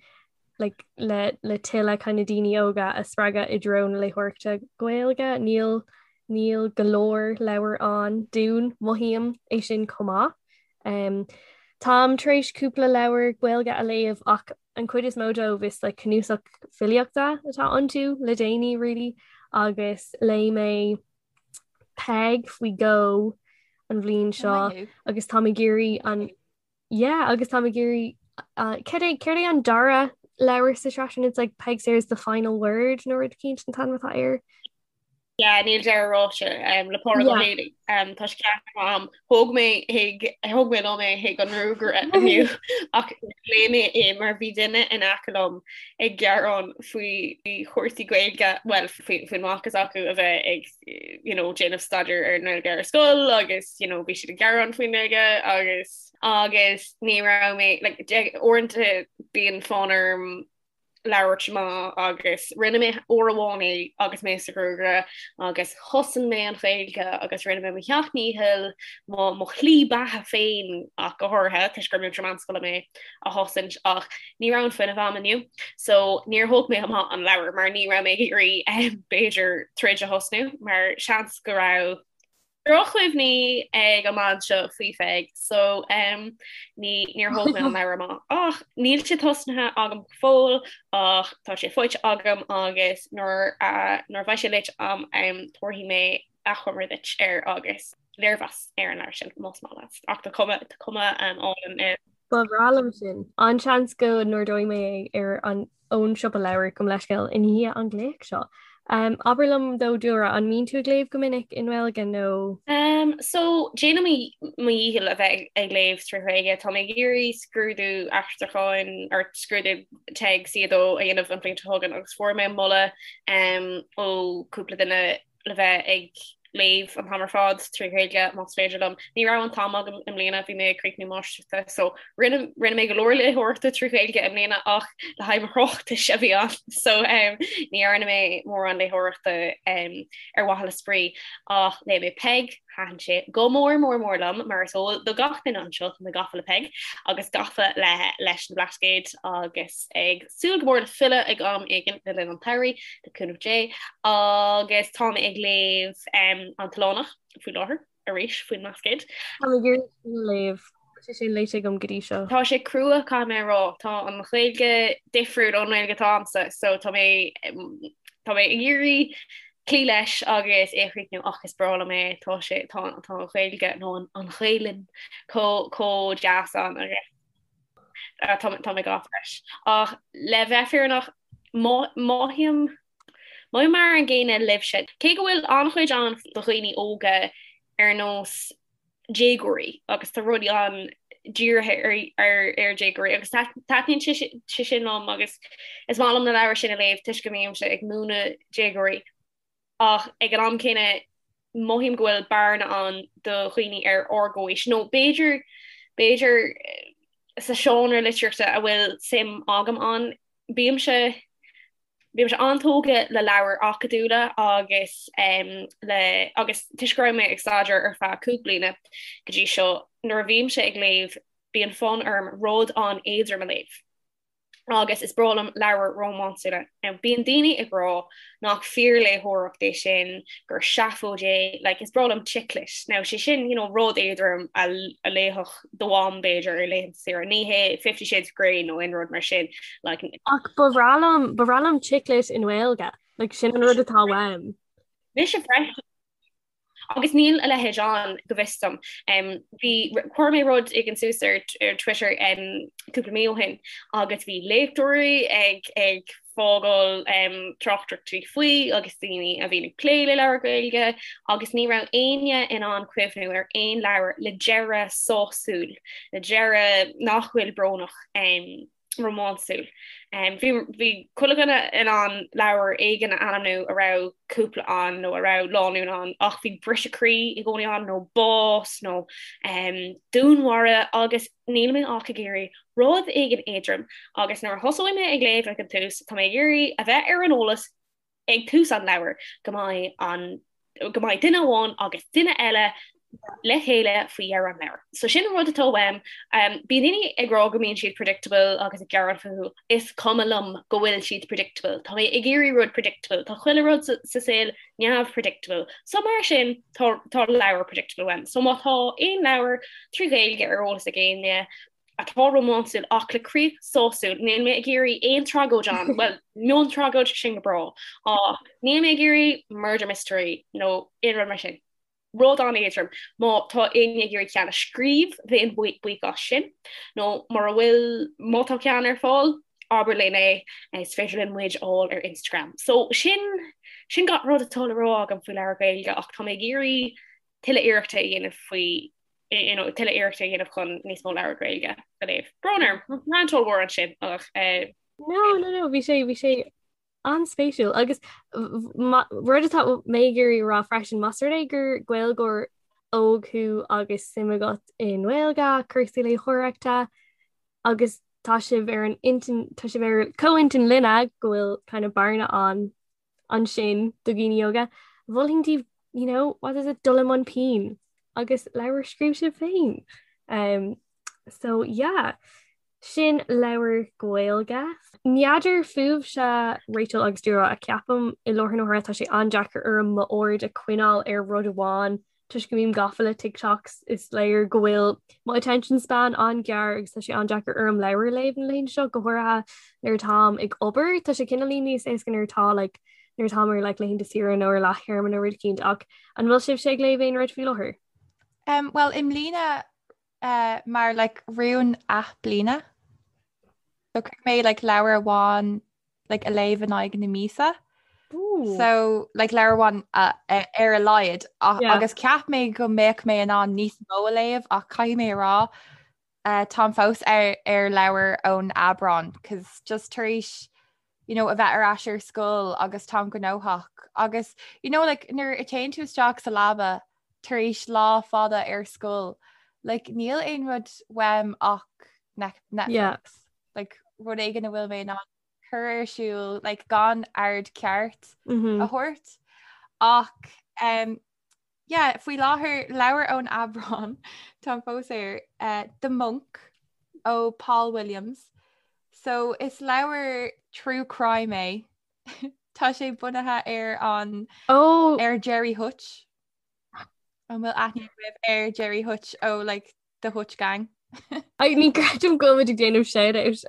like, le, le tuilleadh kind of daoine óga a spreagadh i dtreo na léitheoireachta Gaeilge. Níl níl go leor leabhar ann dúinn mothaím é sin chomh maith. Um, táim tar éis cúpla leabhar Gaeilge a léamh ach an chuid is mó dóibh is like, cnuasach filíochta atá iontu le déanaí really agus léigh mé Peig faoi dhó an bhliain seo agus táim ag iarraidh an yeah agus táim ag iarraidh uh, céard é céard é an dara leabhar sa tsraith sin it's like Peig Sayers the final word nó rud éicint an t-ainm atá air. Yeah, níl deireadh ráite um, le Pádraig Ó Héalaí. Um, tá sé ceart am. Thóg mé chuig thóg mé liom é chuig an ngruagaire inniu ach léigh mé é mar bhí duine in aice liom ag gearán faoi chúrsaí Gaeilge, bhuel faoin mac s'acu a bheith ag you know, déanamh staidéar ar an nGaeilge ar scoil agus you know, bhí siad ag gearán faoin nGaeilge agus agus ní raibh mé like, uaireanta bíonn fonn orm labhairt amach agus rinne mé uair amháin é agus mé sa ghruagaire agus chosain mé an Ghaeilge agus rinne mé mo sheacht ndícheall mo mo shlí beatha féin ach go háirithe toisc gur múinteoir meánscoile mé a chosaint ach ní raibh an fuinneamh a'm inniu so níor thóg mé amach an leabhar mar ní raibh mé ag iarraidh b'fhéidir troid a thosnú mar seans go raibh drochchuimhní ag an mbean seo faoi Pheig so um, ní níor thóg mé an leabhar amach ach níl sé tosnaithe agam go fóill ach tá sé faighte agam agus nuair uh, nuair a bheidh sé léite a'm um, tabharfaidh mé achoimre duit air agus léirmheas ar an leabhar sin más maith leat ach tá cuma tá cuma álainn air. Ba bhreá liom sin. An-seans go n-ordóidh mé é ar an ón siopa leabhar gabh mo leithscéal i ndiaidh an glaoch seo. Um, abair liom though Dúlra, an mbíonn tú ag léamh go minic i nGaeilge nó? Um, so déanaim mo dhícheall a bheith ag léamh trí Ghaeilge. Tá mé ag iarraidh scrúdú aistriúcháin or scrúdú TEG C2 a dhéanamh an bhliain seo chugainn agus fuair mé moladh um, ó cúpla duine le bheith ag léamh an t-am ar fad trí Ghaeilge más féidir liom. Ní raibh an t-am agam i mbliana, bhí mé ag críochnú máistreachta so rinne rinne mé go leor léitheoireachta trí Ghaeilge i mbliana ach le haghaidh mo thráchtais a bhí ann so um, ní dhearna mé mórán léitheoireachta um, ar mhaithe le spraoi ach léigh mé Peig Thaitin sé go mór mór mór liom mar is eol do gach duine anseo tá mé gafa le Peig agus gafa le leis na Blascaoid agus ag súil go mór le filleadh ag am éigin le linn an tsamhraidh le cúnamh Dé agus tá mé ag léamh um, An tOileánach faoi láthair arís faoin mBlascaod. Tá mé ag iarraidh sin a léamh. Tá sé sin léite agam go dtí seo. Tá sé crua caithfidh mé a rá. Tá an Ghaeilge difriúil ón nGaeilge atá agamsa so tá mé tá mé ag iarraidh cloí leis agus é a chríochnú ach is breá liom é, tá sé, tá, tá an Ghaeilge nó an, an Ghaelainn chomh, chomh deas ann agus tá, tá mé gafa leis. Ach le bheith fírinneach, mothaím, mothaím mar an gcéanna libhse. Cé go bhfuil an-chuid ann do dhaoine óga ar nós déagóirí agus tá rudaí ann dírithe ar ar ar déagóirí agus taitníonn sé sé sin liom agus is maith liom na leabhair sin a léamh toisc go mbímse ag múineadh déagóirí ach ag an am céanna mothaím go bhfuil bearna ann do dhaoine ar ár gcomhaois nó b'fhéidir b'fhéidir sa seánra litríochta a bhfuil suim agam ann bímse Bímse an-tógtha le leabhair acadúla agus le agus toisc go raibh mé ag staidéar ar feadh cúig bliana go dtí seo, nuair a bhímse ag léamh bíonn fonn orm rud an-éadrom a léamh agus is breá liom leabhair rómánsúla. Now bíonn daoine ag rá nach fíorléitheoireacht é sin, gur seafóid é, like is breá liom chick lit. Now sé sin you know rud éadrom a léifeadh do mham b'fhéidir ar laethanta saoire, ní hé Fifty Shades of Grey nó aon rud mar sin like. Ach ba bhreá liom, ba bhreá liom chick lit i nGaeilge, like sin an rud atá uaim. Mise freisin. Agus níl a leithéid ann go bhfios dom. Um, bhí chuir mé rud éigin suas ar, ar Twitter um, cúpla mí ó shin agus bhí léachtóirí ag, ag fágáil tráchtaireachtaí faoi agus daoine a bhíonn ag plé le leabhair Ghaeilge agus ní raibh éinne in ann cuimhniú ar aon leabhar le deireadh sásúil, le deireadh nach bhfuil brónach rómánsúil. Bhí bhí chuile dhuine in ann leabhar éigin a ainmniú a raibh cúpla ann nó a raibh lánúin ann ach bhí briseadh croí i gcónaí ann nó bás nó dúnmharú agus Níl mé ach ag iarraidh rud éigin éadrom agus nuair a thosóidh mé ag léamh ag an tús, tá mé ag iarraidh a bheith ar an eolas ag tús an leabhair go mbeidh an go mbeidh duine amháin agus duine eile le chéile faoi dheireadh an leabhair. So sin an rud atá uaim. Um, bíonn daoine ag rá go mbíonn siad predictable agus ag gearán fúthu. Is cuma liom go bhfuil siad predictable. Tá mé ag iarraidh rud predictable. Tá chuile rud sa, sa saol neamh-predictable. So mar sin, tá tá leabhar predictable uaim. So má tá aon leabhar trí Ghaeilge ar eolas ag éinne atá rómánsúil ach le críoch sásúil, níl mé ag iarraidh aon tragóid ann, well, miontragóid sin go breá, ach níl mé ag iarraidh murder mystery nó aon rud mar sin. Rud an-éadrom. Má tá éinne ag iarraidh ceann a scríobh, bheinn buíoch as sin. Nó mura bhfuil, má tá ceann ar fáil, abair linn é, is féidir linn muid a fháil ar Instagram. So sin sin gach rud atá le rá agam faoi leabhar Gaeilge ach tá mé ag iarraidh tuilleadh iarrachta a dhéanamh faoi you know, tuilleadh iarrachta a dhéanamh chun níos mó leabhar Gaeilge a léamh. Brón orm, rant ollmhór ansin ach eh, No, no, no, bhí sé bhí sé an-spéisiúil agus rud atá mé ag iarraidh a rá freisin, más rud é gur Gaeilgeoir óg thú agus suim agat i nGaeilge, cúrsaí léitheoireachta agus tá sibh ar an intinn, tá sibh ar comhintinn linne go bhfuil kind of bearna ann ansin do dhaoine óga, mholfainn daoibh, you know, what is it, dul i mbun pinn agus leabhar a scríobh sibh féin. Um, so yeah, sin leabhar Gaeilge. N'fheadar fúibhse Rachel agus Dúlra ach ceapaim i láthair na huaire tá sé an-deacair orm m'aird a choinneáil ar rud amháin toisc go mbím gafa le TikToks is léir go bhfuil mo attention span an-ghearr agus tá sé an-deacair orm leabhar a léamh na laethanta seo, go háirithe nuair atáim ag obair. Tá sé cineáilín níos éasca nuair atá like, nuair atá ar like laethanta saoire nó ar leath-théarma nó rud eicínt ach an bhfuil sibhse ag léamh aon rud faoi láthair? Um, well i mbliana uh, mar like rún athbliana. So chuir mé like leabhar amháin like a léamh in aghaidh na míosa. Ooh. So like leabhar amháin uh, ar a laghad Yeah. agus cheap mé go mbeadh mé in ann níos mó a léamh ach caithfidh mé a rá uh, táim fós ar ar leabhar ón Aibreán cos just tar éis you know, a bheith ar ais ar scoil agus táim gnóthach agus you know, like, nuair a téann tú isteach sa leaba tar éis lá fada ar scoil like, níl aon rud uaim ach Netflix. Yeah. Like, rud éigin a bhfuil mé in ann cur ar siúl like, gan aird ceart Mm -hmm. a thabhairt ach um, Yeah, faoi láthair leabhar ón Aibreán táim fós air uh, The Monk ó Paul Williams. So is leabhar true crime é. Tá sé bunaithe ar an oh. ar Gerry Hutch. An bhfuil aithne agaibh ar Gerry Hutch ó like The Hutch Gang. Ai ní creidim go bhfuil ag déanamh shout-out.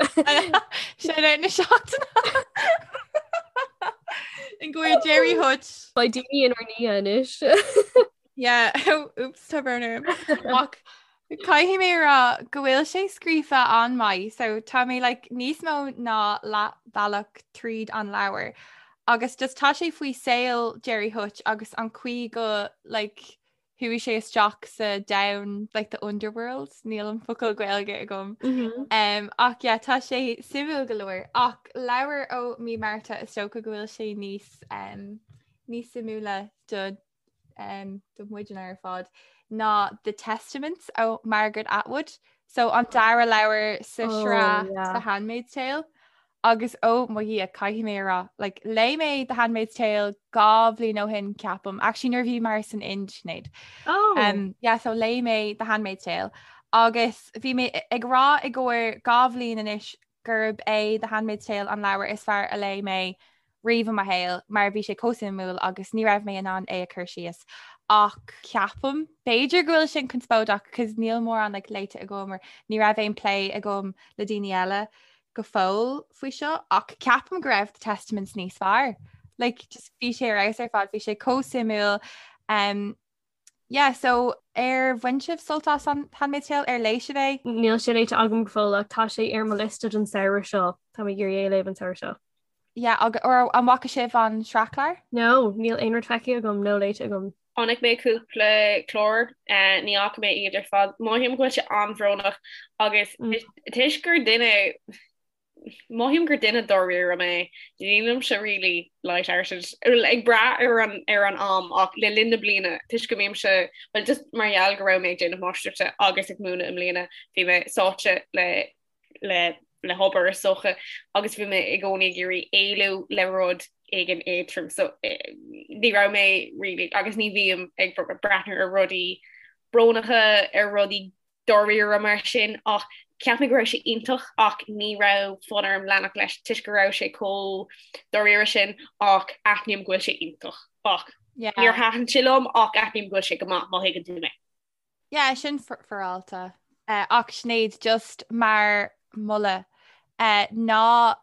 Shout-out na seachtaine. In go Gerry Hutch. Beidh daoine inár ndiaidh anois. Yeah, oops, tá brón orm. Ach caithfidh mé rá go bhfuil sé scríofa an-mhaith, so tá mé like, níos mó ná leathbhealach tríd an leabhar. Agus just tá sé faoi saol Gerry Hutch agus an chaoi go like, Chuaigh sé isteach sa domhan like the underworld, níl an focal Gaeilge agam. Mm -hmm. um, ach yeah, tá sé suimiúil go leor ach leabhar ó mí Márta is dócha go bhfuil sé níos um, níos suimiúla do um, do muidne ar fad ná The Testaments ó Margaret Atwood. So an dara leabhar sa Oh, sraith yeah. The Handmaid's Tale. Agus ó mo Dhia caithfidh mé a rá, like, léigh mé The Handmaid's Tale 2 bhliain ó shin ceapaim, actually nuair a bhíomar san Ind, Sinéad. Oh. Um, yeah, so léigh mé The Handmaid's Tale agus bhí mé ag rá i gcomhair 2 bhliain anois gurb é The Handmaid's Tale an leabhar is fearr a léigh mé riamh i mo shaol mar bhí sé chomh suimiúil agus ní raibh mé in ann é a chur síos. Ach ceapaim, b'fhéidir go bhfuil sin conspóideach cos níl mórán like, léite agam or ní raibh aon plé agam le daoine eile go fóill faoi seo ach ceapaim go raibh The Testaments níos fearr. Like, just bhí sé ar fheabhas ar fad, bhí sé chomh suimiúil. Um, yeah, so ar bhain sibh sult as an Handmaid's Tale ar léigh sibh é? Níl sé léite agam go fóill ach tá sé ar mo liosta don samhradh seo. Tá mé ag iarraidh é a léamh an samhradh seo. Yeah, ag, or an bhfaca sibh an sraithchlár? No, níl aon rud feicthe agam nó léite agam. Chonaic mé cúpla clár, ní fhaca mé iad ar fad. Mothaím go bhfuil sé an-bhrónach agus toisc gur duine, mothaím gur duine dáiríre mé, nílimse really light-hearted, ag brath ar an ar an am ach le linn na bliana toisc go mbímse, well just mar gheall go raibh mé ag déanamh máistreachta agus ag múineadh i mbliana, bhí mé sáite le le le hobair is dócha agus bhí mé i gcónaí ag iarraidh éalú le rud éigin éadrom so ní raibh mé really agus ní bhím ag breathnú ar rudaí brónacha ar rudaí dáiríre mar sin ach cheap mé go raibh sé iontach ach ní raibh fonn orm leanacht leis toisc go raibh sé chomh dáiríre sin ach aithním go bhfuil sé iontach ach níor thaitin sé liom ach aithním go bhfuil sé go maith má thuigeann tú mé. Yeah, sin féaráilte. Uh, ach Sinéad, just mar mholadh, uh, ná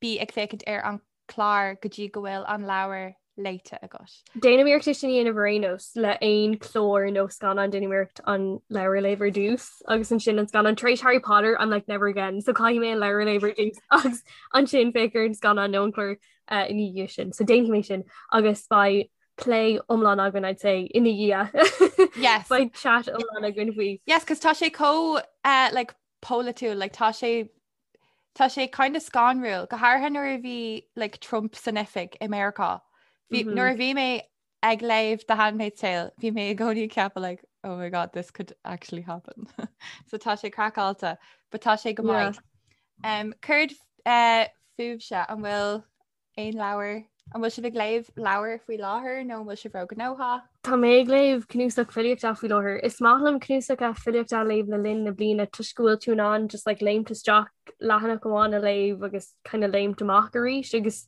bí ag féachaint ar an clár go dtí go bhfuil an leabhar léite agat. Déanaim iarracht é sin a dhéanamh ar aon nós le aon chlár nó scannán déanaim iarracht an leabhar a léamh ar dtús agus ansin an scannán tar éis Harry Potter I'm like never again so caithfidh mé an leabhar a léamh ar dtús agus ansin féach ar an scannán nó an clár uh, ina dhiaidh sin. So déanfaidh mé sin agus beidh plé iomlán againn I'd say ina dhiaidh. Yes. Beidh chat iomlán againn faoi. Yes, cos tá sé chomh uh, like, polaitiúil, like, tá sé tá sé kind of scanrúil, go háirithe nuair a bhí like, Trump san oifig i Meiriceá. Bhí, mm -hmm. Nuair a bhí mé ag léamh The Handmaid's Tale, bhí mé i gcónaí ag ceapadh like, oh my god, this could actually happen. so tá sé craiceáilte, but tá sé go maith. Yeah. Um, Céard uh, fúibhse an bhfuil Aon leabhar? An bhfuil sibh ag léamh leabhar faoi láthair nó an bhfuil sibh róghnóthach? Tá mé ag léamh cnuasach filíochta faoi láthair. Is maith liom cnuasacha filíochta a léamh le linn na bliana toisc go bhfuil tú in ann just like léimt isteach leathanach amháin a léamh agus kind of léimt amach arís agus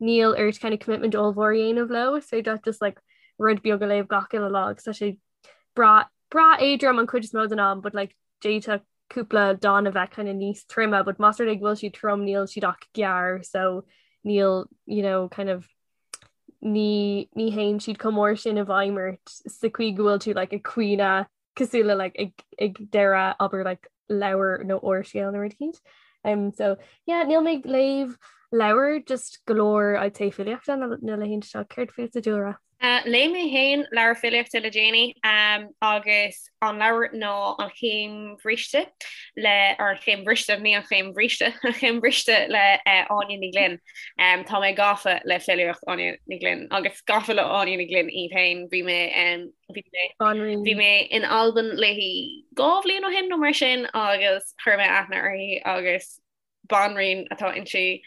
níl ort kind of commitment ollmhór a dhéanamh leo. Is féidir leat just like rud beag a léamh gach uile lá agus tá sé breá breá éadrom an chuid is mó den am but like d'fhéadfadh cúpla dán a bheith kind of níos troime, but más rud é go bhfuil siad trom níl siad ach gearr so níl you know kind of ní ní théann siad chomh mór sin i bhfeidhm ort sa chaoi go bhfuil tú like ag caoineadh cosúil le like ag ag deireadh abair like leabhar nó úrscéal nó rud eicínt. Um, so yeah, níl mé ag léamh leabhar just go leor I'd say filíochta na na laethanta seo céard fútsa Dúlra? Uh, léigh mé féin leabhar filíochta le déanaí um, agus an leabhar ná An Chéim Bhriste le or An Chéim Bhriste ní an Chéim Bhríste An Chéim Bhriste le uh, Áine Ní Ghlinn. Um, tá mé gafa le filíocht Áine Ní Ghlinn agus gafa le Áine Ní Ghlinn í féin bhí mé um, bhí mé bhí mé in Albain léi 2 bhliain ó shin nó mar sin agus chuir mé aithne uirthi agus banríon atá inti.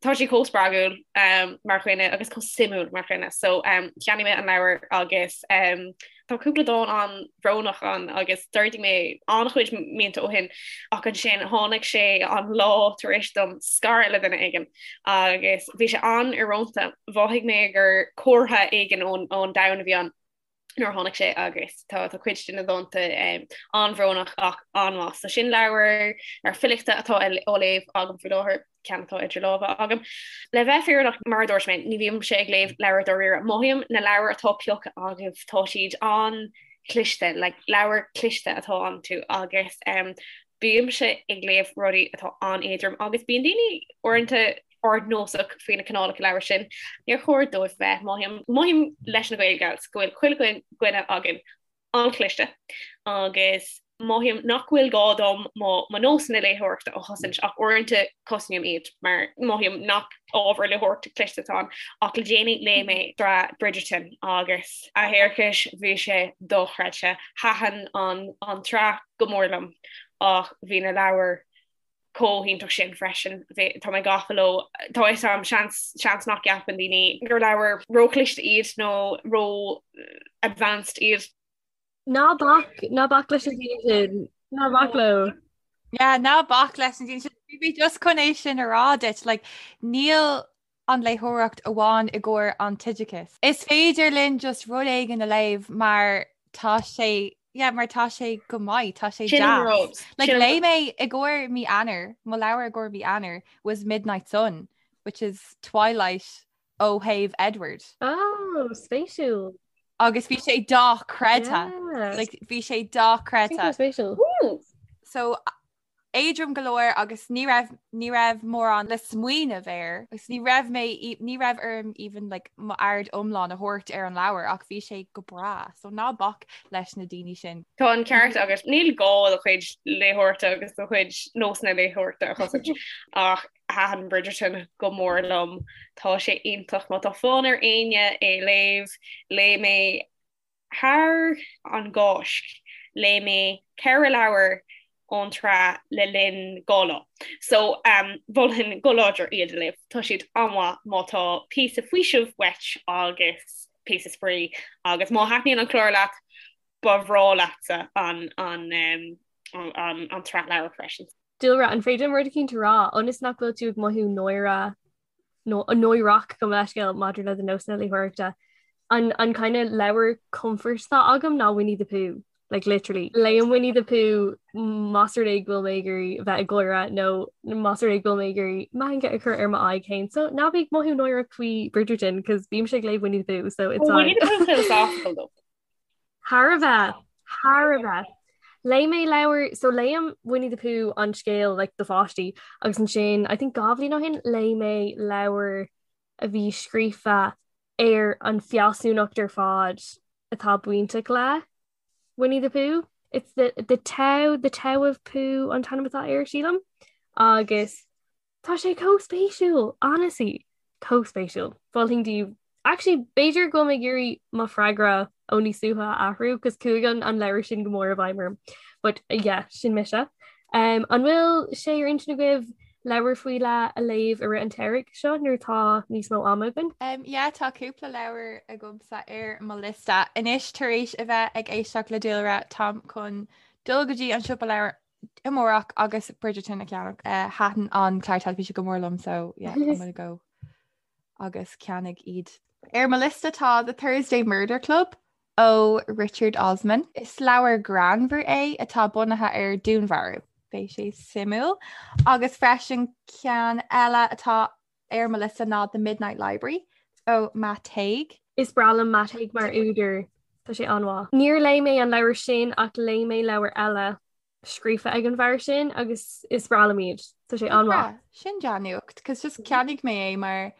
Tá sí chomh spreagúil um, mar dhuine agus chomh suimiúil mar dhuine. So um, cheannaigh mé an leabhar agus um, tá cúpla dán an-bhrónach ann agus d'ardaigh mé an-chuid mianta ó shin ach ansin tháinig sé an lá tar éis dom scaradh le duine éigin agus bhí sé an-íorónta. Mhothaigh mé gur comhartha éigin ón ón domhan a bhí ann. nuair a tháinig sé agus tá tá cuid de na dánta an-bhrónach ach an-mhaith. So sin leabhar ar filíochta atá á léamh agam faoi láthair, ceann atá idir lámha agam. Le bheith fírinneach mar a dúirt mé, ní bhímse ag léamh leabhar dáiríre. Mothaím na leabhair atá pioctha agaibh, tá siad an-chliste, like leabhar cliste atá iontu agus um, bímse ag léamh rudaí atá an-éadrom agus bíonn daoine uaireanta ardnósach faoi na cineálacha leabhar sin. Níor chóir dóibh bheith. Mothaím, mothaím leis na Gael Gals go bhfuil chuile dhuine againn an-chliste agus mothaím nach bhfuil gá dom mo mo nósanna léitheoireachta a chosaint ach uaireanta cosnaím iad mar mothaím nach ábhar léitheoireachta cliste atá ann ach le déanaí léigh mé sraith Bridgerton agus a thiarcais bhí sé dochreidte. Thaitin an an tsraith go mór liom ach bhí na leabhair chomh hiontach sin freisin. Tá mé gafa leo. Tá fhios a'm, seans, seans nach gceapann daoine gur leabhair róchliste iad nó ró-advanced iad. Ná bac, ná bac leis na daoine sin. Ná bac leo. Yeah, ná bac leis na daoine sin. Bhí mé just chun é sin a rá duit, like, níl an léitheoireacht amháin i gcomhair an t-oideachas. Is féidir linn just rud éigin a léamh mar tá sé yeah, mar tá sé go maith, tá sé deas. Like, léigh mé i gcomhair mí Eanáir, mo leabhar i gcomhair mí Eanáir was Midnight Sun, which is Twilight ó thaobh Edward. Oh, spéisiúil. Agus bhí sé dochreidte. Yeah. Like, bhí sé dochreidte. Spéisiúil. So éadrom go leor agus ní raibh ní raibh mórán le smaoineamh air agus ní raibh mé ní raibh orm even like m'aird iomlán a thabhairt ar an leabhar ach bhí sé go breá so ná bac leis na daoine sin. Tá an ceart agat níl gá do chuid léitheoireachta agus do chuid nósanna léitheoireachta a chosaint ach thaitin Bridgerton go mór liom. Tá sé iontach má tá fonn ar éinne é léamh léigh mé Thar an gCáisc, léigh mé 4 leabhar ón tsraith le linn 2 lá. So, mholfainn go láidir iad a léamh. Tá siad an-mhaith má tá píosa faoisimh uait agus píosa spraoi agus má thaitníonn an clár leat, ba bhreá leatsa an an an tsraith leabhar freisin. Dúlra, an féidir liom rud eicínt a rá, ionas nach bhfuil tú ag mothú náire nó náireach gabh mo leithscéal maidir le do nósanna léitheoireachta. An an kind of leabhar comfort atá agam ná Winnie the Pooh. Like literally. Léim Winnie the Pooh más rud é go bhfuil mé ag iarraidh bheith ag gáire nó más rud é go bhfuil mé ag iarraidh meangadh a chur ar m'aghaidh féin. So ná bí ag mothú náireach faoi Bridgerton cos bímse ag léamh Winnie the Pooh so it's Winnie the Pooh philosophical though. Thar a bheith, thar a bheith. Léigh mé leabhar, so léim Winnie the Pooh an scéal like do pháistí agus ansin I think 2 bhliain ó shin léigh mé leabhar a bhí scríofa ar an fealsúnacht ar fad atá bainteach le Winnie the Pooh. It's the the Tao, the Tao of Pooh an t-ainm atá air sílim agus Tá sé chomh spéisiúil, honestly, chomh spéisiúil. Mholfainn daoibh. Actually, b'fhéidir go bhfuil mé ag iarraidh mo freagra ó níos luaithe a athrú, cos chuaigh an an leabhar sin go mór i bhfeidhm orm. But yeah, sin mise. Um, an bhfuil sé ar intinn agaibh leabhar faoi leith a léamh i rith an tsamhraidh seo nuair atá níos mó ama againn? Um, yeah, tá cúpla leabhar agamsa ar mo liosta. Anois tar éis a bheith ag éisteacht le Dúlra, táim chun dul go dtí an siopa leabhar amárach agus Bridgerton a cheannach. Thaitin an clár teilifíse go mór liom so yeah, I'm gonna go agus ceannaigh iad. Ar mo liosta tá The Thursday Murder Club ó Richard Osman. Is leabhar greannmhar é atá bunaithe ar dúnmharú. Beidh sé suimiúil. Agus freisin ceann eile atá ar mo liosta ná The Midnight Library. ó Matt Haig. Is breá liom Matt Haig mar údar, tá sé an-mhaith. Níor léigh mé an leabhar sin ach léigh mé leabhar eile scríofa ag an bhfear sin agus is breá liom iad. Tá sé an-mhaith. Sin dea-nuacht, cos just cheannaigh mé é mar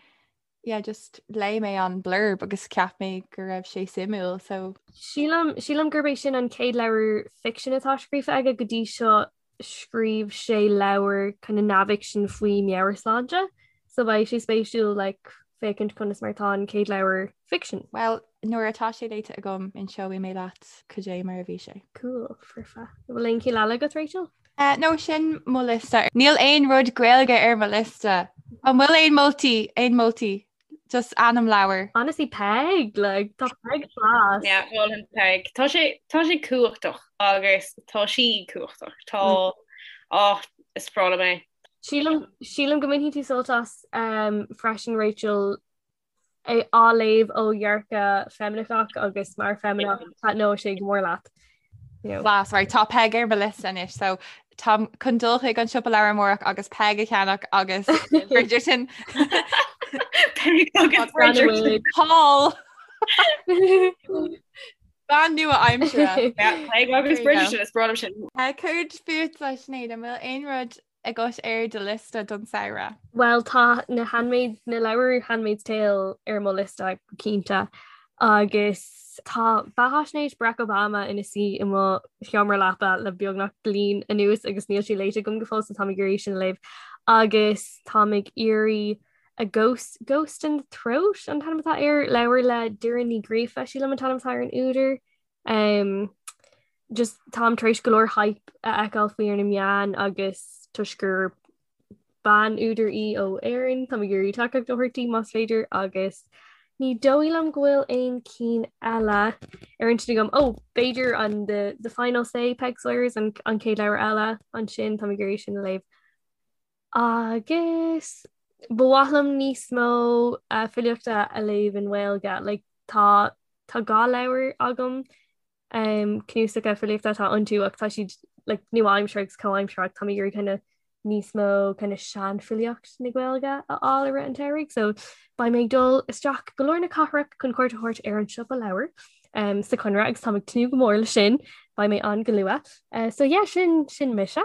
yeah just léigh mé an blurb agus cheap mé go raibh sé suimiúil so. Sílim sílim gurb é sin an chéad leabhar ficsin atá scríofa aige go dtí seo scríobh sé leabhar kind of neamhfhicsin faoi meabhairshláinte so beidh sé spéisiúil like féachaint conas mar atá an chéad leabhar ficsin. Well nuair atá sé léite agam inseoidh mé leat cad é mar a bhí sé. Cool, foirfe. An bhfuil aon cinn eile agat Rachel? Uh, no sin mo liosta. Níl aon rud Gaeilge ar mo liosta. An bhfuil aon moltaí, aon moltaí? Just ainm leabhar. Honestly Peig, like, tá Peig class. Yeah, mholfainn Peig. Tá sé tá sé cumhachtach agus tá sí cumhachtach. Tá mm. oh, is breá liom é. Sílim sílim go mbainfidh tú sult as um, freisin Rachel é á léamh ó dhearcadh feimineach agus mar feimineach taitneoidh sé go mór leat. Class, right, tá Peig ar mo liosta anois, so táim chun dul chuig an siopa leabhar amárach agus Peig a cheannach agus Bridgerton. Peig agus Bridgerton. Paul! Bean nua aimsire. Peig agus Bridgerton is breá liom sin. Céard fútsa Sinéad, an bhfuil aon rud agat ar do liosta don samhradh? Bhuel tá na Handmaid, na leabhair Handmaid's Tale ar mo liosta go cinnte agus tá beathaisnéis Barack Obama ina suí i mo sheomra leapa le beagnach bliain anuas agus níl sé léite agam go fóill so táim ag iarraidh sin a léamh agus táim ag iarraidh A Ghost, Ghost in the Throat an t-ainm atá air, leabhar le Doireann Ní Ghríofa sílim an t-ainm atá ar an údar. Um, just táim tar éis go leor hype a fheiceáil faoi ar na meáin agus toisc gur bean údar í ó Éirinn, táim ag iarraidh tacaíocht a thabhairt di más féidir agus ní dóigh liom go bhfuil aon cinn eile ar intinn agam. Ó, b'fhéidir an the, the Final Say Peig Sayers an, an chéad leabhar eile ansin táim ag iarraidh sin a léamh. Agus ba mhaith liom níos mó uh, filíochta a léamh i nGaeilge. Like, tá tá dhá leabhar agam um, cnuasacha filíochta atá iontu ach tá siad like, nua-aimseartha agus comhaimseartha tá mé ag iarraidh kind of níos mó kind of seanfhilíocht na Gaeilge a fháil i rith an tsamhraidh, so beidh mé ag dul isteach go lár na cathrach chun cuairt a thabhairt ar an siopa leabhar um, sa Chonradh agus táim ag tnúth go mór leis sin, beidh mé ann go luath. Uh, so yeah, sin sin mise.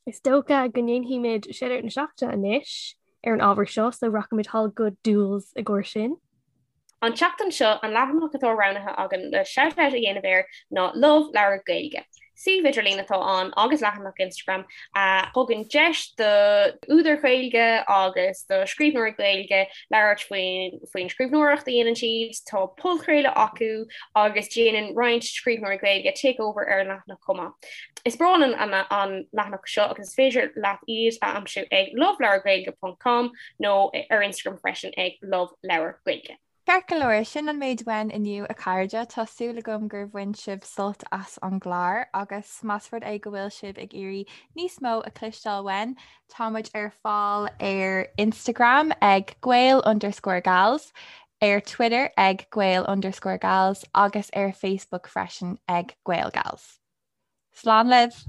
Is dócha go ndéanfaimid Shout-Out na Seachtaine anois ar an ábhar seo, so rachaimid thall go Dúils i gcomhair sin. An tseachtain seo, an leathanach atá roghnaithe againn le shout-out a dhéanamh air ná Love Leabhar Gaeilge. Suíomh idirlín atá ann agus leathanach Instagram a thugann deis do údair Ghaeilge agus do scríbhneoirí Gaeilge labhairt faoin scríbhneoireacht a dhéanann siad. Tá podchraoladh acu agus déanann roinnt scríbhneoirí Gaeilge takeover ar an leathanach chomh maith. Is breá linn an leathanach seo agus is féidir leat iad a aimsiú ag loveleabhargaeilge ponc com nó ar Instagram freisin ag loveleabhargaeilge. Ceart go leor, sin an méid uainn inniu a chairde. Tá súil agam gur bhain sibh sult as an gclár agus más rud é go bhfuil sibh ag iarraidh níos mó a chloisteáil uainn, tá muid ar fáil ar Instagram ag gael underscore gals, ar Twitter ag gael underscore gals agus ar Facebook freisin ag gaelgals. Slán libh!